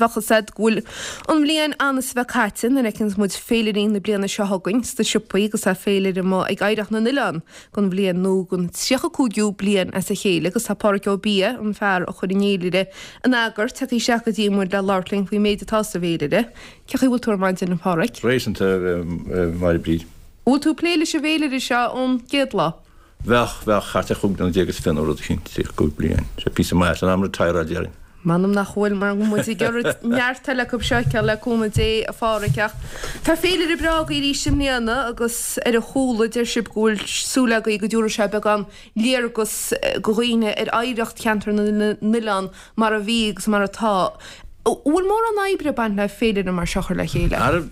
bheadh fhios a'd go bhfuil an bhliain ann is a bheith caite nuair a fheiceanns muid féilirí na bliana seo chugainn sna siopaí agus tá féilire amuigh ag Oidhreacht na nOileán don bhliain nua don 35ú bliain as a chéile agus tá Pádhraic Ó Biadha, an fear a chuir an fhéilire in eagar, tagtha isteach go dtí muid le labhairt linn faoin méid atá sa bhféilire. Cén chaoi a bhfuil tú ar maidin, a Phádhraic? Réasúnta, a Mháire Bríd. Bhfuil tú ag plé leis an bhféilire seo ón gcéad lá? Bheadh, bheadh, thart ar 15 bliana is fiche nó rud eicínt, 35 bliain. Sé píosa maith, san am retireáil déarfainn. M'anam nach bhfuil, mar go muid ag iarraidh neart eile acu seo a fheiceáil le cúnamh Dé, a Phádhraic, ach tá féilire breá agaibh arís i mbliana agus ar a chúla deir sibh go bhfuil súil agaibh go dtabharfaidh sé beagán léargas go dhaoine ar oidhreacht cheantar na n-oileán mar a bhí agus mar atá. An bhfuil mórán oibre ag baint le féilire mar seo a chur le chéile? Ara,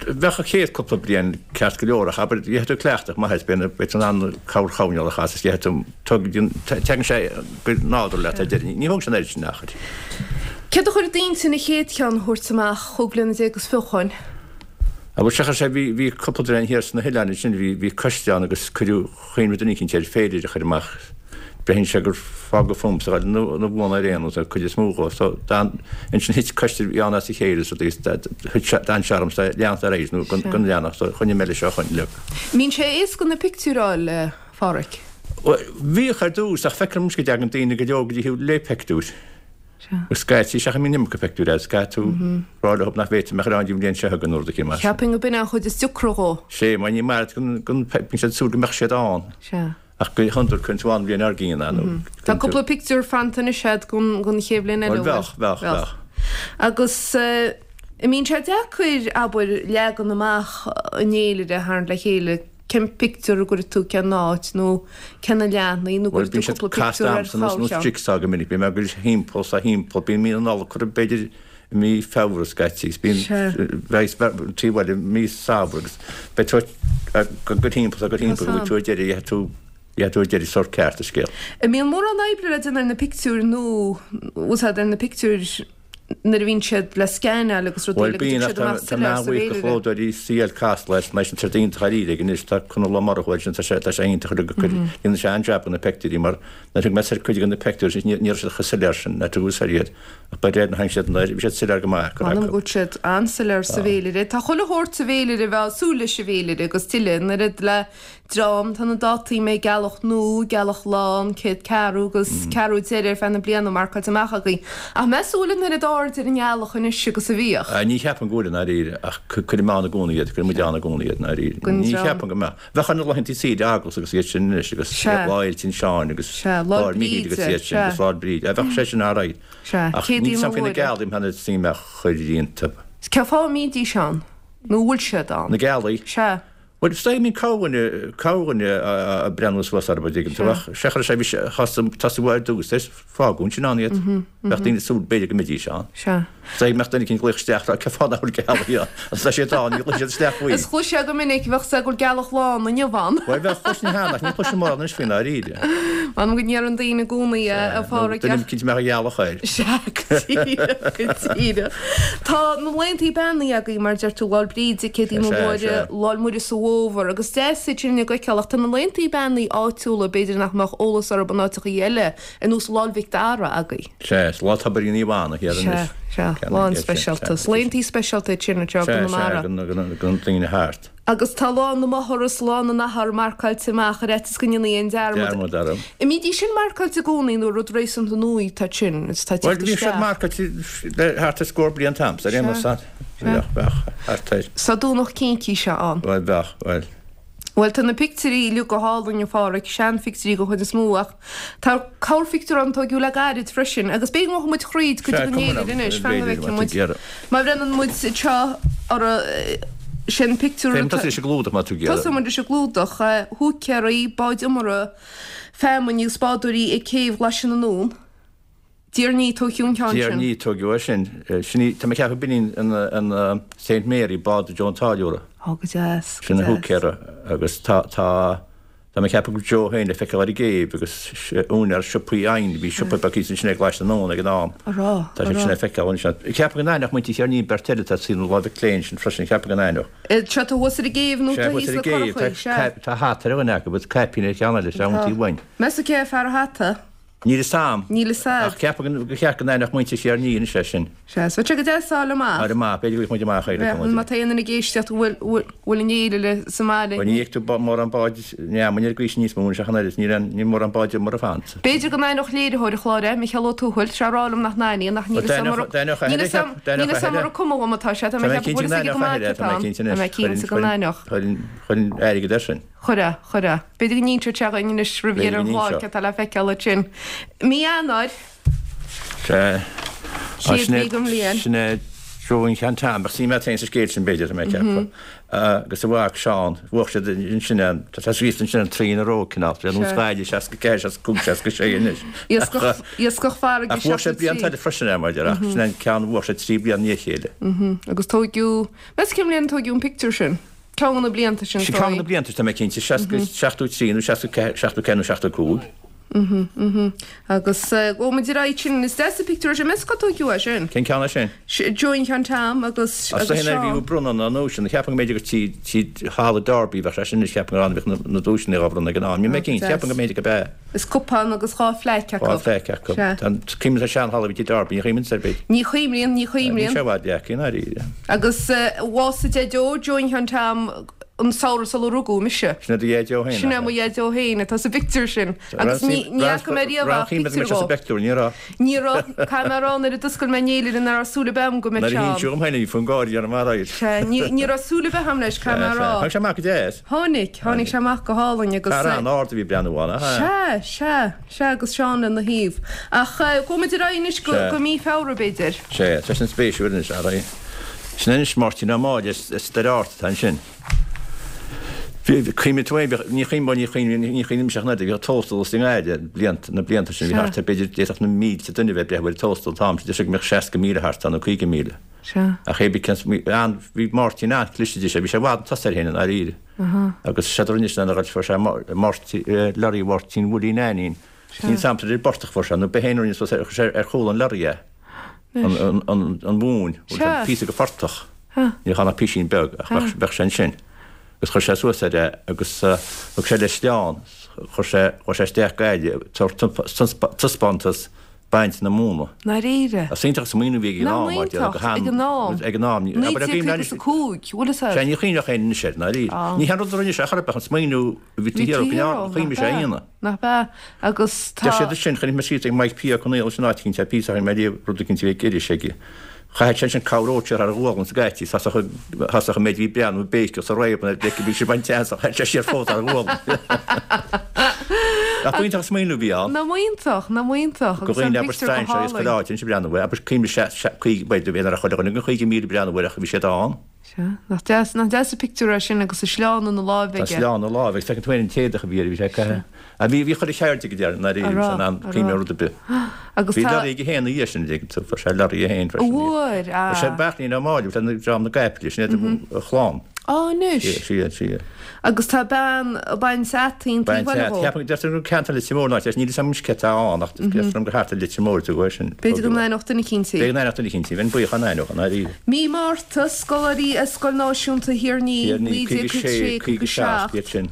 bheadh an chéad cúpla bliain ceart go leor ach abair, gheobhaidh tú cleachtadh maith air, beidh beidh tú in ann corrchoirnéal a chasadh is gheobhaidh tú, tugann, tagann sé go nádúrtha leat ar deireadh. Ní thógann sé an oiread sin achair. Céard a chuir i d'intinn an chéad cheann a thabhairt amach chúig bliana déag is fiche ó shoin? Abair, seachas sé, bhí, bhí cúpla duine thiar sna hoileáin ansin, bhí, bhí coiste ann agus cuireadh, Chuimhnigh duine eicínt ar féilire a chur amach. Braitheann sé gur fágadh fúmsa a ghoil na bhuanna ar aon nós, an cuid is mó dhó. So d'fhan, ansin thit coiste a bhí ann as a chéile so thit sé, d'fhan sé ormsa leanacht ar aghaidh nó go leanfadh so choinnigh mé leis ó shoin uilig. Mbíonn sé éasca na pictiúir a fháil, a Phádhraic? Bhuel, bhíodh ar dtús ach feicim anois go dtagann daoine go leor go dtí thú le pictiúir. Agus scaití, seachas mbíonn iomarca pictiúir agat, scaití tú rá leo nach bhféadfaidh mé a chur ann an bhliain seo chugainn nó rud eicínt mar sin. Cheapfainn go b'in an chuid is deacra dhó. Sé, mar ní maith leat go bíonn siad ag súil go mbeadh siad ann. Sea. Ach go hiondúil cuireann tú ann an bhliain dár gcionn é nó. Tá cúpla pictiúr fanta anois agat don chéad bhliain eile, an bhfuil? Bheadh, bheadh, bheadh. Agus an mbíonn sé deacair, abair, leagan amach an fhéilire a tharraingt le chéile? Cén pictiúr a gcuirfidh tú cén áit nó cé na leathanaigh nó Bhuel, gcuirfidh bíonn tú siad cúpla casta pictiúr ar a'msa nós chorr nós cheann? jigsaw go minic. Bíonn mé ag goil thimpeall 's a thimpeall. Bíonn mí na Nollag curtha b'fhéidir i mí Feabhra scaití 's bíonn Sea. bheidh an taobh eile i mí Samhra agus beidh tú ag goil thimpeall 's ag goil Tá thimpeall go bhfuil san. tú ar deireadh, gheobhaidh tú, gheobhaidh tú ar deireadh sórt ceart an scéal. An mbíonn mórán oibre le déanamh ar na pictiúir nó bhfuil 's a'd ar na pictiúir nuair a bhíonn siad le scanáil agus rudaí Bhuel le go bíonn dtig ach siad amach tá mé soiléir sa an-bhuíoch do bhféilire. chlódóirí CL Casla as mar sin tá siad iontach dáiríre aige anois tá Conall Ó Murchú air sin tá sé tá sé iontach ar go dhéanann sé an-jab de na peictiúirí mar nuair a thug mé soir cuid de na peictiúirí sin ní ní raibh siad chomh soiléir sin nuair a tugadh soir iad ach ba réir na tháinig siad nuair bhí siad soiléir go maith go M'anam raibh go bhfuil siad an-soiléir sa bhféilire. Tá chuile shórt sa bhféilire a bheifeá ag súil leis sa bhféilire agus tuilleadh an oiread le dream, tá na dátaí mbeidh gealach nua, gealach lán, céad ceathrú agus ceathrú deiridh ar feadh na bliana marcáilte amach againn. Ach meas tú an bhfuil an oiread aird ar an ngealach anois agus a bhíodh? Ní cheapaim go bhfuil i ndáiríre, ach cuirim ann i gcónaí iad, cuireann muid ann i gcónaí iad i ndáiríre. Don Ní dream. cheapaim go mbeadh. Bheadh ar na laethanta saoire eaglasta agus iad sin anois agus Sea. Lá Fhéile Uinseann agus Sea, Lá Lá Míchíl agus Bríde, iad sin sea. agus Lá Bríde. Bheadh sé sin alright. Sea, Ach Céadaoin níl 's a'm faoi na Mhuire. gealaí, mbeadh na suim a chur iontu. Cén fáth a mbídís ann? Nó an bhfuil siad ann? Na gealaí? Sea. Bhuel, is dóigh, bíonn corrdhuine, corrdhuine ag breathnú suas orthu, an dtuigeann tú, ach sé chuir sé, bhí sé, thosaigh uaidh ar dtús, is fágadh ansin ann iad. Bheadh daoine ag súil b'fhéidir go mbeidís ann. Sea. Is dóigh go mbeadh duine eicínt ag glaoch isteach, rá, cén fáth nach bhfuil gealaí ann? Agus tá siad ann, ní ghlaofaidh siad isteach faoi. Is chloisfeá go minic, bheadh sé go bhfuil gealach lán inniu ann. Bhuel, bheadh, chloisinn cheana, ach ní chloisim mórán anois faoi ndáiríre. M'anam go ndeireann daoine i gcónaí, a Pháraic, Duine eicínt a mbeadh a ghealach air. Sea, go díreach, go díreach. Tá na laethantaí beannaithe agaibh, mar a deir tú, Lá'l Bríde, Céadaoin na Mhuire, Lá'l Muire sa bhFómhar, agus deas iad sin a fheiceáil, ach tá na laethantaí beannaithe áitiúla, b'fhéidir nach mbeadh eolas orthu in áiteachaí eile, ar nós Lá'l Mhic Dara agaibh. Sea, is Lá Tobair Naomh Anna thiar anois. Sea, sea, lá an-speisialta. Is laethantaí speisialta iad sin anseo i gConamara. Sea, sea, do na daoine thart. Agus tá Lá na Máthar is Lá na nAthar marcáilte amach ar fhaitíos go ndéanfaí aon dearmad. Dearmad orthu. An mbídís sin marcáilte i gcónaí nó rud réasúnta nua atá sin is atá ag Bhuel, teacht bhí siad isteach? marcáilte le thart ar scór bliain t'amsa, ar aon nós. Sea, sea. Bheadh, bheadh, thart air. Tá Domhnach Cincíse ann. Bhuel, bheadh, bhuel. Bhuel, tá na pictiúirí uilig go hálainn, a Pháraic, seanphictiúirí den chuid is mó ach tá corrphictiúr ann a tóigeadh le gairid freisin agus b'fhéidir go ngabhfaidh muid thríd cuid den fhéilire anois, fan go bhfeicfidh muid. Má bhreathnaíonn muid anseo orthu, sin pictiúr Féach, tosaigh leis an gclúdach má tá tú ag iarraidh. Tosóidh muid leis an gclúdach, húicéirí, báid iomartha, feamainne agus bádóirí ag céibh Ghlaise na nDún. Déarfainn tóigeadh an ceann Déar sin. ní tóigeadh é sin. Sin í, tá mé ag ceapadh b'in í an Saint Mary, bád Joe an Táilliúra. Ó, go deas, go Sin an deas. húicéara agus tá, tá, tá mé ag ceapadh go raibh Joe féin le feiceáil ar an gcéibh agus úinéir siopaí oighinn, bhí siopa beag thíos ansin ag Glaise na nDún ag an am. A rá, a Tá sé sin rá. le feiceáil ansin. Ceapaim go n-aithneodh muintir Cheirnín beirt eile atá taobh na láimhe clé ansin freisin, ceapaim go n-aithneodh. Seo tá thuas ar an gcéibh nó Sea, tá thuas thíos ar na an gcéibh, curachaí, sea. tá, tá hata ar dhuine acu agus caipín ar cheann eile, sea, Tá. iontaoibh uainn. Meas tú cé fear an hata? Níl fhios a'm. Níl fhios a'd. Ach ceapaim gur cheart go n-aithneodh muintir Thír an Fhia anois é sin. Sea, is bheadh sé go deas fáil amach. Fáil amach, b'fhéidir go bhfaighidh muid amach é le cúnamh Dé. Má tá aon duine ag éisteacht a bhfuil, bhfuil an fhéile sa mbaile. Bhuel ní fheicfidh tú mórán báid neamainn ar an gcaoi sin níos mó anois ach an oiread, níl aon, níl mórán báid iomaire fanta. B'fhéidir go n-aithneodh léiritheoir an chláir é, Micheál Ó Tuathail, sé a rá liom nach n-aithníonn ach níl fhios a'm ar, níl fhios a'm, níl fhios a'm ar an cuma dhom atá sé, tá mé ag ceapadh go bhfuil fhios aige go maith cé atá ann. Tá mé cinnte go n-aithneodh. Chuirfinn, chuirfinn airgead air sin. Chuirfeá, chuirfeá. B'fhéidir go n-inseodh sé dhuinn anois roimh dheireadh an chláir cé atá le feiceáil ansin. Mí Eanáir. Sea. Chéad mhí den bhliain. Sin é Joe an Shean Tom. Bheadh suim agat féin sa scéal sin, b'fhéidir, tá mé ag ceapadh. Agus a mhac Seán, bhuaigh siad ansin é, tá sé scríofa ansin an trí in a row, cineál. Sé nós Gaillimh, 64, 65, 66 anois. Iascach, iascach farraige Ach bhuaigh sé blianta eile freisin é, mar a déarfá, ach sin é an ceann a bhuaigh sé trí bliana i ndiaidh a chéile. Agus tóigeadh, meas cén bhliain a tóigeadh an pictiúr sin? Ceann de na blianta sin, Sin ceann de na blianta, tá mé cinnte, 60, 73 nó 64, 74 nó 75. Mhm, mhm. Agus gabhfaidh muid ar aghaidh sin, is deas an pictiúr é sin, meas cá tóigeadh é sin? Cén ceann é sin? Joe an Shean Tom agus, agus Seán. As a bhí bronnadh na nduaiseanna, cheapfainn go mb'fhéidir gur tí, tí Halla Derby a bheadh sé sin anois, cheapfainn gur ann a bhíodh na duaiseanna á bhronnadh ag an am. Níl mé cinnte, cheapfainn go mb'fhéidir go b'ea. Is cupán agus 2 phlaic acu. 2 phlaic acu. Sea. Tá an cuimhin an seanhalla a bhí tigh Darby, ní chuimhníonn ar bith. Ní chuimhníonn, ní chuimhníonn. Níl sé i bhfad leagtha i ndáiríre. Agus bhásaigh Deaideo, Joe an Shean Tom, an samhradh sular rugadh mise. Sin é do Dheaideo féin, Sin é mo Dheaideo féin atá sa bpictiúr sin. Agus ní, ní fhaca mé riamh ach pictiúr dhó. sa bpictiúr, ní raibh. Ní raibh. Caithfidh mé a rá nuair a d'oscail mé an fhéilire nach raibh súil ar bith agam go mbeadh Nuair a Seán. hinsíodh dhom féin é, bhí fonn gáire orm faraor. Sea, ní, ní raibh súil ar bith agam leis, caithfidh mé a rá. Tháinig sé amach go deas. Tháinig, tháinig sé amach go hálainn agus. Fear an-ard a bhí ag breathnú ann, ach ea? Sea, sea, sea agus Seán lena thaobh. Ach gabhfaidh muid ar aghaidh anois go, go mí Feabhra b'fhéidir. Sea, tá sin spéisiúil anois, ar aghaidh. Sin anois Máirtín Ó Máille as Doire Ard atá ansin. Bhí, cuimhnigh tú féin, bhíodh, ní chuimhním, bhuel ní chuimhním, ní chuimhnímse ach an oiread, bhíodh tóstal i nGaillimh blianta, na blianta sin, bhí thart ar b'fhéidir, d'fhéadfadh na mílte duine a bheith ag breathnú ar an tóstal an t-am sin, deir sé go mbeadh 60,000 thart ann nó 50,000. Sea. Ach é bhí an, bhí Máirtín an-chliste de sé, bhí sé i bhfad chun tosaigh air féin i ndáiríre. Agus séard a rinne sé ná fuair sé Máirtín, lorry Mháirtín Willie Neainín. Sea. Níl 's a'm ar an bportach a fuair sé, nó b'é féin a rinne suas é, chuir sé ar chúl an lorry é. Anois. An, an, an mhóin, bhfuil Sea. sé píosa de phortach. Sea. Ní raibh ann ach písín beag, ach bheadh, bheadh sé ansin. Agus chuir sé suas air é agus thug sé leis sleán, chuir sé, chuir sé isteach Gaillimh, tabhairt taispeántas baint na móna. ndáiríre. Is iontach an smaoineamh a bhí ag an am, mar Nach iontach, ag an am. Ag an am. 1955, bhfuil fhios agat? Sea, ní chuimhneodh éinne anois air, ndáiríre. Ní haon rud a rinne sé chor ar bith, an smaoineamh a bhí taobh thiar go leor, chuimhnigh sé a dhéanamh. Nach ea? Agus tá. Deir siad ansin, chonaic mé scríte ag Mike P. Ó Conaola sin áit eicínt, píosa a chonaic mé ariamh, rud eicínt a bhí ag iris aige. Chaithfeadh sé ansin cabhródh sé thar a ghualainn sa gcaití, thosódh an méid a bhí ag breathnú ag béiceadh sa réab an oiread bhí sé ag baint teasa, chaith sé siar fós thar a ghualainn. Nach iontach an smaoineamh a bhí ann. Nach iontach, nach iontach, Go agus an dhaoine abair pictiúr go strainséirí as chuile hálainn. áit anois ag breathnú air, abair cuimhnigh sé, sé, caoga, bhuel, bhí ar chuile dhuine den 50,000 ag breathnú air ach bhí siad ann. Sea, nach deas, nach deas an pictiúr é sin agus an sleán ina láimh Tá aige. sleán ina láimh agus feiceann tú féin an t-éadach a bhí air, bhí sé ag caitheamh. Ah, bhí, bhí chuile cheird aige déarfainn, ndáiríre, A bhí sé raibh, in ann a cuimhneamh raibh. ar rud ar bith. Agus Bhí tá. lorry aige féin ina dhiaidh sin, dtuigeann tú, fuair sé lorry é féin freisin. Bhfuair, Fuair sé ah. Beairtlín Ó Máille, bhí sé ina dream na gcaiple, sin iad a chlann. Á, anois. Sea, sea, sea. Agus tá bean ag baint fhataí an Baint taobh eile fhataí. dhó. Ceapaim, deirtear gur ceantar Leitir Móir an áit, níl fhios a'm anois cé atá ann ach deirtear liom gur thart ar Leitir Móir a tugadh é sin. B'fhéidir go n-aithneodh duine eicínt í. B'fhéidir go n-aithneodh duine eicínt í. Bheinn buíoch dá n-aithneodh, i ndáiríre. Mí Márta, scoláirí ar Scoil Náisiúnta Thír an Fhia, Thír an Fhia, 1956, 56, 57. 57 iad sin.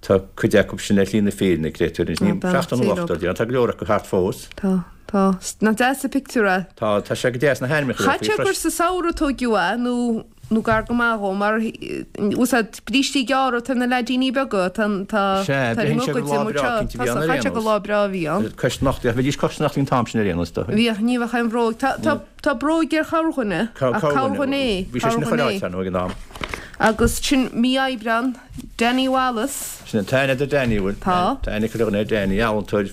Tá cuid acu sin ar shlí na fírinne, créatúir. Anois, Tá, ní, beannacht 70 nó Dé leo. 80, déarfainn. Tá go leor acu thart fós. Tá, tá. Nach deas an pictiúr é? Tá, tá sé go deas na hainmneacha Chaithfeadh faoi sé gur freisin. sa samhradh a tóigeadh é nó nó gar go maith dhó, mar úsáid brístí gearra atá ar na leaidíní beaga, tá tá Sea, tá ar an braitheann sé gur mbogaide lá amuigh breá seo, cinnte a bhí tá ann ar chaithfeadh aon sé gur nós. lá breá a bhí ann. Cois nochtaí, ach bhídís cois nochtaí an t-am sin ar aon nós, dóigh. Bhíodh, ní bheadh aon bhróig. Tá tá tá bróig ar chorrdhuine, ach corrdhuine é, Bhí sé sin corrdhuine chuile é. áit, ar ndóigh, ag an am. Agus sin mí Aibreán, Danny Wallace. Sin an t-aithne do Danny, bhfuil? Tá. Tá aithne ag chuile dhuine ar Danny, ealaíontóir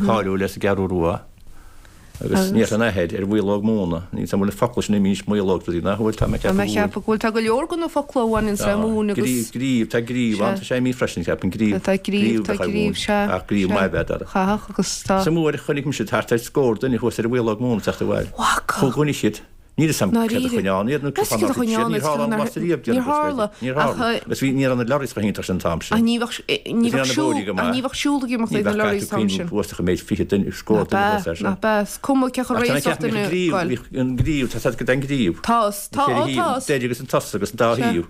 cáiliúil as an gCeathrú Rua. Agus ní an athair ar mhaológ móna. Níl 's a'm bhfuil na focla sin imithe anois maológ rudaí nach bhfuil, tá mé ag Tá mé ceapadh ag ceapadh go bhfuil. Tá go leor de na focla a bhaineanns le móin agus. Gríobh, gríobh, tá gríobh ann, tá sé imithe freisin, ceapaim, gríobh. Tá gríobh, tá gríobh, sea. Ach gríobh maith ab ea dara. Chaithfeadh agus tá. Sa uair a chonaic mise thart ar scór duine thuas ar an mhaológ móna ag teacht abhaile. Bhfaca. Chuaigh dhuine siad. Níl 'fhios a'm céard a choinnigh ann iad nó cén fáth nár thit siad. Níor tharla aon bhlast ariamh, Níor tharla. Níor tharla. Agus bhí, ní raibh na lorries chomh hiontach sin an t-am sin. Ach ní bheadh, ní bheadh siúl, ach ní bheadh siúl ag imeacht ag na lorries an t-am sin. Ní bheadh, caithfidh tú cuimhniú thuas ach an méid 20 duine, scór duine thuas air sin. Nach ea, is cuma cé chomh Ach tá réasúnta ceapaim duine bhí an gríobh, bhí an gríobh, tá 's a'd go dtí an gríobh. Tá, tá, ó tá. Deireadh agus an tosach agus an dá thaobh.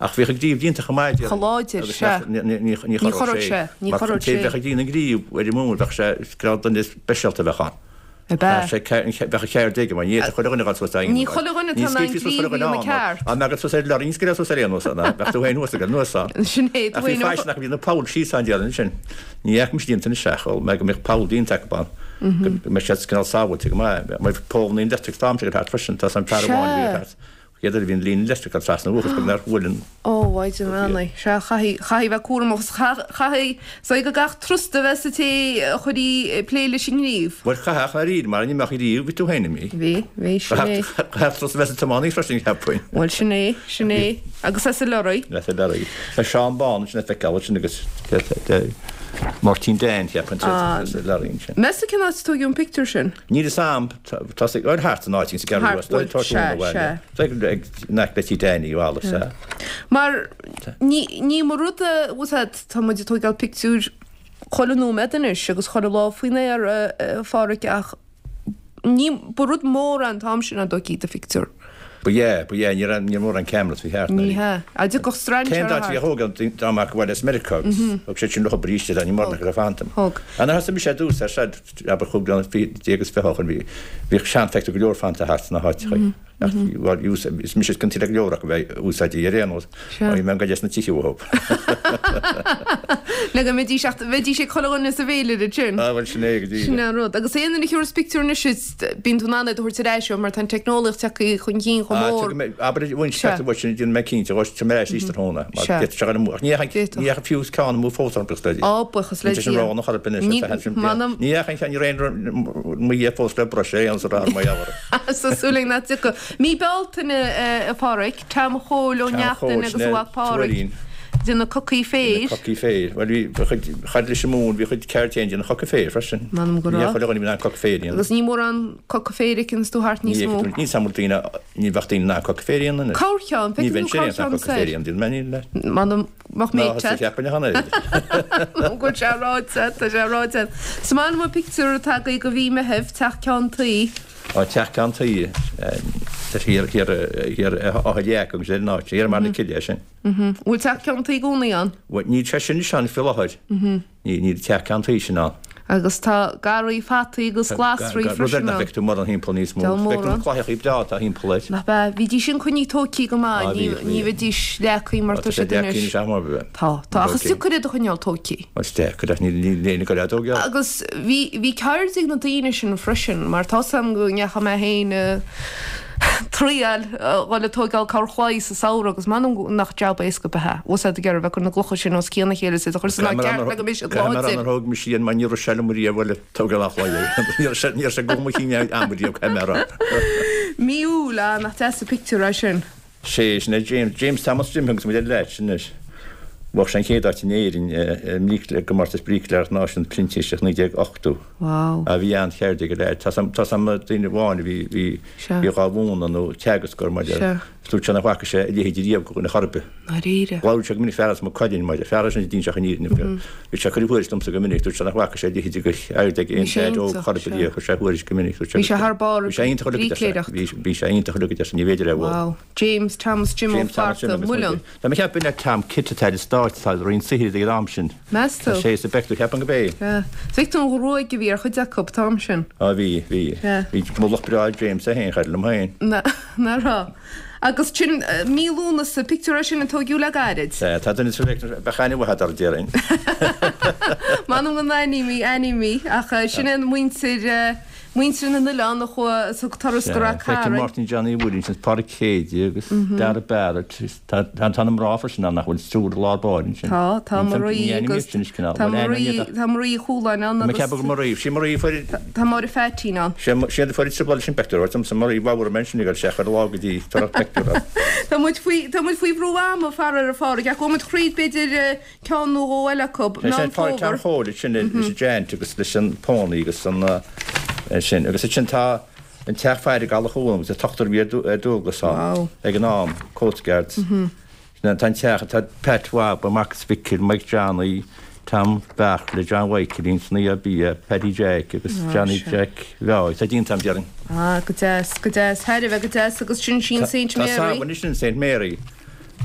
Ach bhíodh an gríobh déanta chomh maith, déarfainn. Chomh láidir, Agus sea. ní, ní, ní, ní Ní chorródh chorródh sé. sé, ní Mar chorródh an té sé. bheadh ag déanamh an ghríobh ar an móin, bheadh sé, cineál duine speisialta a bheadh ann. Ab ea? Chaithfeadh sé, ce- an ce- bheadh an cheird aige, mar ní fhéadfadh chuile dhuine a dhul suas dá Ní chuile dhuine Ní atá in ann scaoilfí suas chuile gríobh a dhuine dhéanamh ann, ceart. Dá mbeadh suas ar lorry, ní scaoilfeá suas ar aon nós ann, bheadh tú féin thuas ag anuas ann. Sin é, tú Ach bhí féin faisean acu, bhí na poll síos ann déarfainn ansin. Ní fhaca mise déanta anois ach shíl mé go mbeadh poll déanta acu ann. Go mbeadh siad cineál sábháilte go maith. Mar bhí poll na electric storm ag thart freisin, tá an fear amháin a bhí thart. Chéad uair a bhí an líne leictreach ag trasna uathu is beag nár bhuail an. Ó, Mhaighdean Bheannaithe. Sea, chaithfidh, chaithfidh a bheith cúramach agus chaithfidh, is dóigh go gcaithfidh trusta a bheith sa té a chuirfidh ag plé leis an ngríobh. Bhuel, chaithfeadh, ach dáiríre, mar ní mbeadh riamh, bhí tú féin imithe. Bhí, bhí, sin é. Chaithfeadh trusta a bheith sa tiománaí freisin, cheapfainn. Bhuel, sin é, sin é. Agus as an lorry. As an lorry. Tá Seán Bán ansin le feiceáil ansin agus Máirtín Dan, cheapfainn, sa lorry ansin. Meas tú cén áit a tóigeadh an pictiúr sin? Níl fhios a'm, tá sé ag thart san áit sa gCeathrú Rua, Thart, bhuel, sea, sea. Tá ag in aice le Tí Danny Wallace, sea. Mar ní, ní mar rud a, bhfuil fhios a'd, tá muid ag tóigeáil pictiúir chuile nóiméad anois agus chuile lá faoin aer, a Pháraic, ach ní, ba rud mór é an t-am sin dá dtóigfí do phictiúr. Ba ea, ba ea, ní raibh, ní raibh mórán cameras faoi thart, Ní hea. Á dtiocfadh strainséir Cén dá thart. bhí a thóg an dá mbeadh abhaile as Meiriceá agus thug siad sin leo arís é, ní mórán acu a fanta. Thug. Nuair a thosaigh mise ar dtús ar siad, abair chúig bliana déag is 20 ó shin, bhí, bhíodh seanphictiúir go leor fanta thart sna háiteacha. Ach bhuel, is mise is ciontaí le go leor acu bheith úsáidte ar aon nós. Sea. Bhí mé ag goil as na tithe uathu. Le go mbeidís ach bheidís ag chuile dhuine sa bhféilire ansin. Ah, bhuel, sin é go díreach. Sin é an rud. Agus aon duine a thiúrfas pictiúr anois is bíonn tú in ann iad a thabhairt ar ais ó mar tá an teicneolaíocht tagtha chun cinn chomh Ah, mór. tuigim mé, abair bhain Sea. pictiúr uait sin, déanfaidh mé cinnte, dhóis, tabharfaidh mé ar ais arís tráthnóna, mar Sea. d'fhéadfadh sé a dhul amú. Ach ní dheachaigh, D'fhéadfadh. ní dheachaigh fiú ceann amú fós orm, buíochas le Dia. Á, buíochas le Níl sé sin Dia. roghnach ar bith anois, Ní, le feadh sin m'anam. Ní dheachaigh an ceann, ní raibh aon mo dhia fós le bruis ar aon nós ar mo dhealramh. Tá súil againn nach dtiocfaidh. Mí Bealtaine, a Pháraic, Tom Chóil Ó Tom Neachtain Chóil, agus sin a é, mhac Páraic, Tuairín. déanamh cocaí féir. Déanamh cocaí féir. Bhuel, bhí, bhí chuid, chad leis an móin, bhí chuid ceird féin déanamh coca féir freisin. M'anam go Ní raibh. chuile dhuine a bhí in ann coca féir a dhéanamh. Agus ní mórán coca féir a fheiceanns tú thart Ní níos mó. fheiceann tú, níl samhail daoine, ní bheadh daoine in ann coca féir a dhéanamh anois. Corrcheann, Ní feiceann bheinn tú sé in ann corrcheann coca féir a soir. dhéanamh, déanfaidh mé ní le. M'anam, mbeadh Ná mé thosaigh te. cheapfainn a cheana air. Go bhfuil sé ráite, tá sé ráite. Is maith liom an pictiúr atá agaibh do mhí Meithimh, teach ceann tuí. Á, teach ceann tuí, tá sé thiar, thiar, thiar Áth Leac agus ar an áit, thiar i mBarr na Cille é sin. Bhfuil teach ceann tuí i gcónaí ann? Bhuel, níl sé sin anois ann faoi láthair. Níl, níl teach ceann tuí sin ann. Agus tá garraí fataí agus glasraí Rud ar freisin nach ann. bhfeic tú mórán thimpeall níos mó. Deabhal Feictear na mórán. claíochaí breá atá thimpeall air. Nach ea? Bhídís sin coinnithe tóigthe go maith, Á, ní, bhíodh, ní bhíodh. bheidís leagtha mar Tá tá sé siad deacair anois. anois am ar bith. Tá, tá, ach is Ok. deacair iad a choinneáil tóigthe. Is deacair ach níl, níl éinne ag goil á dtógáil. Agus bhí, bhí ceird ag na daoine sin freisin, mar tá 's a'm go ndeachaigh mé féin a triail a dhul ag tóigeáil corrchlaí sa samhradh agus m'anam nach jab éasca ab ea é. Bhfuil 's a'd ag iarraidh bheith ag cur na gclocha sin os cionn a chéile is iad a chur san áit ceart le go mbeidh siad Caithfidh mé a rá láidir. nár thóg mise iad mar ní raibh sé liom riamh bhuel ag tógáil an chlaí. Ní raibh sé, ní raibh sé go mo chinn am riamh, caithfidh mé a rá. Mí Iúil, ah, nach deas an pictiúr é sin. Sé sin é James, James Thomas Jim agus muid ar leat sin anois. Bhuaigh sé an chéad áit in Éirinn i gcomórtas bríicléireachta náisiúnta printíseach 1980. Wow. Ah bhí an-cheird ag an leaid. Tá 's a'm duine amháin a bhí, bhí, bhí dhá mhúineadh nó teagascóir mar Sea. Dúirt sé nach bhfaca sé a leithéid riamh de dhuine chor ar bith. Ndáiríre. Labhraíodh sé go minic fear as Maigh Cuilinn mar fear é sin a d'inseodh an fhírinne. Bhí sé ag cur a thuairisc domsa go minic, dúirt sé nach bhfaca sé a leithéid de cheird ag aon Bhí sé leaid óg iontach, chor ar bith sea. riamh. Chuir sé a thuairisc go minic, dúirt sé Bhí sé thar barr Bhí sé iontach uilig, a deir sé. brícléireacht. Bhí, bhí sé iontach uilig, a deir sé, ní bhféidir é a bhualadh. Wow. James Thomas Jim Ó James Thomas Jim Flatharta, agus Muileann. muide. Tá mé ag ceapadh b'in é Tom Kitt atá ar an Stáit, atá ag Roinn Saothair ag an am sin. Meas tú? Tá sé sa bpictiúr, cheapfainn gurb é. Sea. Is feictear an ghruaig a bhí ar chuid acu an t-am sin. Á bhí, bhí. Sea. Bhí mullach breá ag James é féin, char liom féin. Nach raibh. Agus sin mí Lúnasa, pictiúr é sin a tóigeadh le gairid. Sea, tá duine sa bhfeictear, bheadh aithne mhaith agat air, déarfainn. M'anam go n-aithním í, aithním í, ach sin é muintir, muintir na n-oileán a chuaigh, a thug turas go Sea, Rath feicim Cairn. Máirtín Johnny Williams, Pádraig Céide agus Dara Barrett, tá, tá, tá na mná freisin ann nach bhfuil triúr i lár báire ansin. Tá, tá Ní Marie aithním agus, iad sin is cineál, tá bhuel aithním Marie, iad ach. tá Marie Uí Chualáin ann Tá mé ag agus. ceapadh gur Marie, sí Marie a fuair. Tá Máire Pheaitín ann. Sé siad a fuair an trioblóid leis an bpeictiúr, dúirt liomsa Marie Bhabhar mé ansin ag dul isteach ar lá go dtí tar pictiúr as. Tá muid faoi, tá muid faoi bhrú ama, faraor, a Phádraig, ach gabhfaidh muid thríd b'fhéidir ceann nó dhó eile acu. Sé Meán sin Pádraig Tom Fómhair. Chóil sin leis an Giant agus leis an Pony agus an sin agus ansin tá an teach faire ag Eallach Cuan agus an t-ochtar a bhí ar dualgas ann ag an am, Coast Guards. Tá an teach, tá Pat Bhaba, Marcus Mhicil, Mike Johnny, Tom Bheartla, John Mhichaelín, Snoí Bia, Paddy Jack agus Johnny Jack Bheáigh. Tá déanta agam, déarfainn. Ah, go deas, go deas. Thar a bheith go deas agus sin sí an Saint Tá Mary. Samhain sin Saint Mary.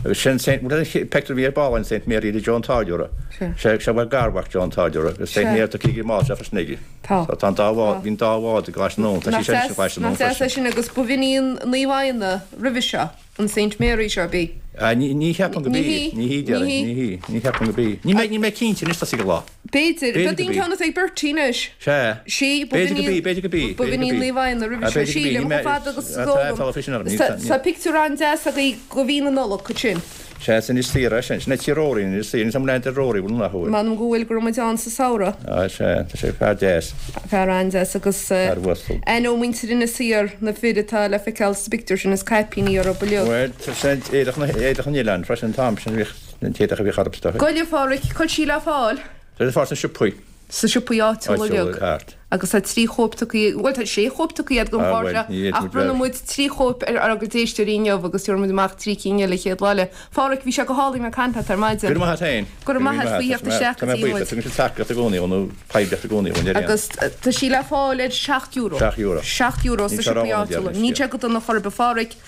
Agus sin Saint, bhuel an pictiúr a bhí ar ball an Saint Mary le Joe an Táilliúra. Sea. Sé bhuel garmhac Joe an Táilliúra agus Saint Mary tá cíg i mbás sé freisin aige. Tá. Tá an dá bhád, bhí an dá bhád i gColáiste na nDún, tá sí sin i gColáiste na Nách deas é sin agus ba bh'in í an Naomh Adhna roimhe seo, an Saint Mary seo, ab í? Ah, ní, ní cheapaim go b'í. Ní hí. Ní hí, déarfainn. Ní hí. Ní hí. Ní cheapaim go b'í. Níl mé, níl mé cinnte anois tosaigh an lá. B'fhéidir. B'fhéidir B'fhéidir an ceann atá ag Bertie anois. Sea. Sí, ba B'fhéidir go b'í, b'fhéidir go b'í, ba bh'in í Naomh Adhna roimhe seo. Sílim, chomh fada agus is eol dom. Tá pictiúr an-deas agaibh de mhí na Nollag ansin. Sea, sin Inis Oírr é sin. Sin é tí Rory in Inis Oírr. Níl 'am leath de Rory, bhfuil nach bhfuil? M'anam go bhfuil, go raibh muid ann sa samhradh. Á, sea, tá sé fear deas. Fear an-deas agus Fear uasal. aithneoidh muintir Inis Oírr na fir atá le feiceáil sa bpictiúr sin, is caipíní orthu uilig. Bhuel, sin éadach na, éadach an oileáin freisin an t-am sin, bhíodh an t-éadach a bhíodh orthu is dócha. Gabh i leith, a Pháraic, cá bhfuil sí le fáil? Tá sí le fáil sna siopaí. Sna siopaí áitiúla uilig. Agus tá 3 chóip tugtha, bhuel tá 6 chóip tugtha agat don chlár seo ach bronnfaidh muid 3 chóip ar ár gcuid éisteoirí inniu agus tabharfaidh muid amach 3 cinn eile chéad lá eile. A Pháraic, bhí sé go hálainn ag caint leat ar maidin. Go raibh maith agat féin. Go raibh maith agat faoi theacht isteach go dtí muid. Tá mé buíoch, tugann siad tacaíocht i gcónaí nó poiblíocht i gcónaí dhúinn ar aon. Agus tá sí le fáil ar €7. €7. €7 sna siopaí áitiúla. Níl sé go dona chor ar bith. A Pháraic.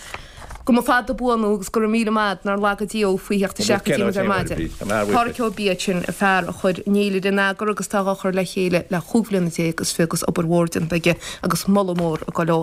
Go mba fada buan thú agus go raibh míle maith agat nár laga Dia thú faoi theacht isteach go dtí muid ar maidin. Páraic Ó Biadha sin, an fear a chuir an fhéilire in eagar agus atá dhá chur le chéile le chúig bhliana déag is fiche agus obair mhór déanta aige agus moladh mór ag dul dó.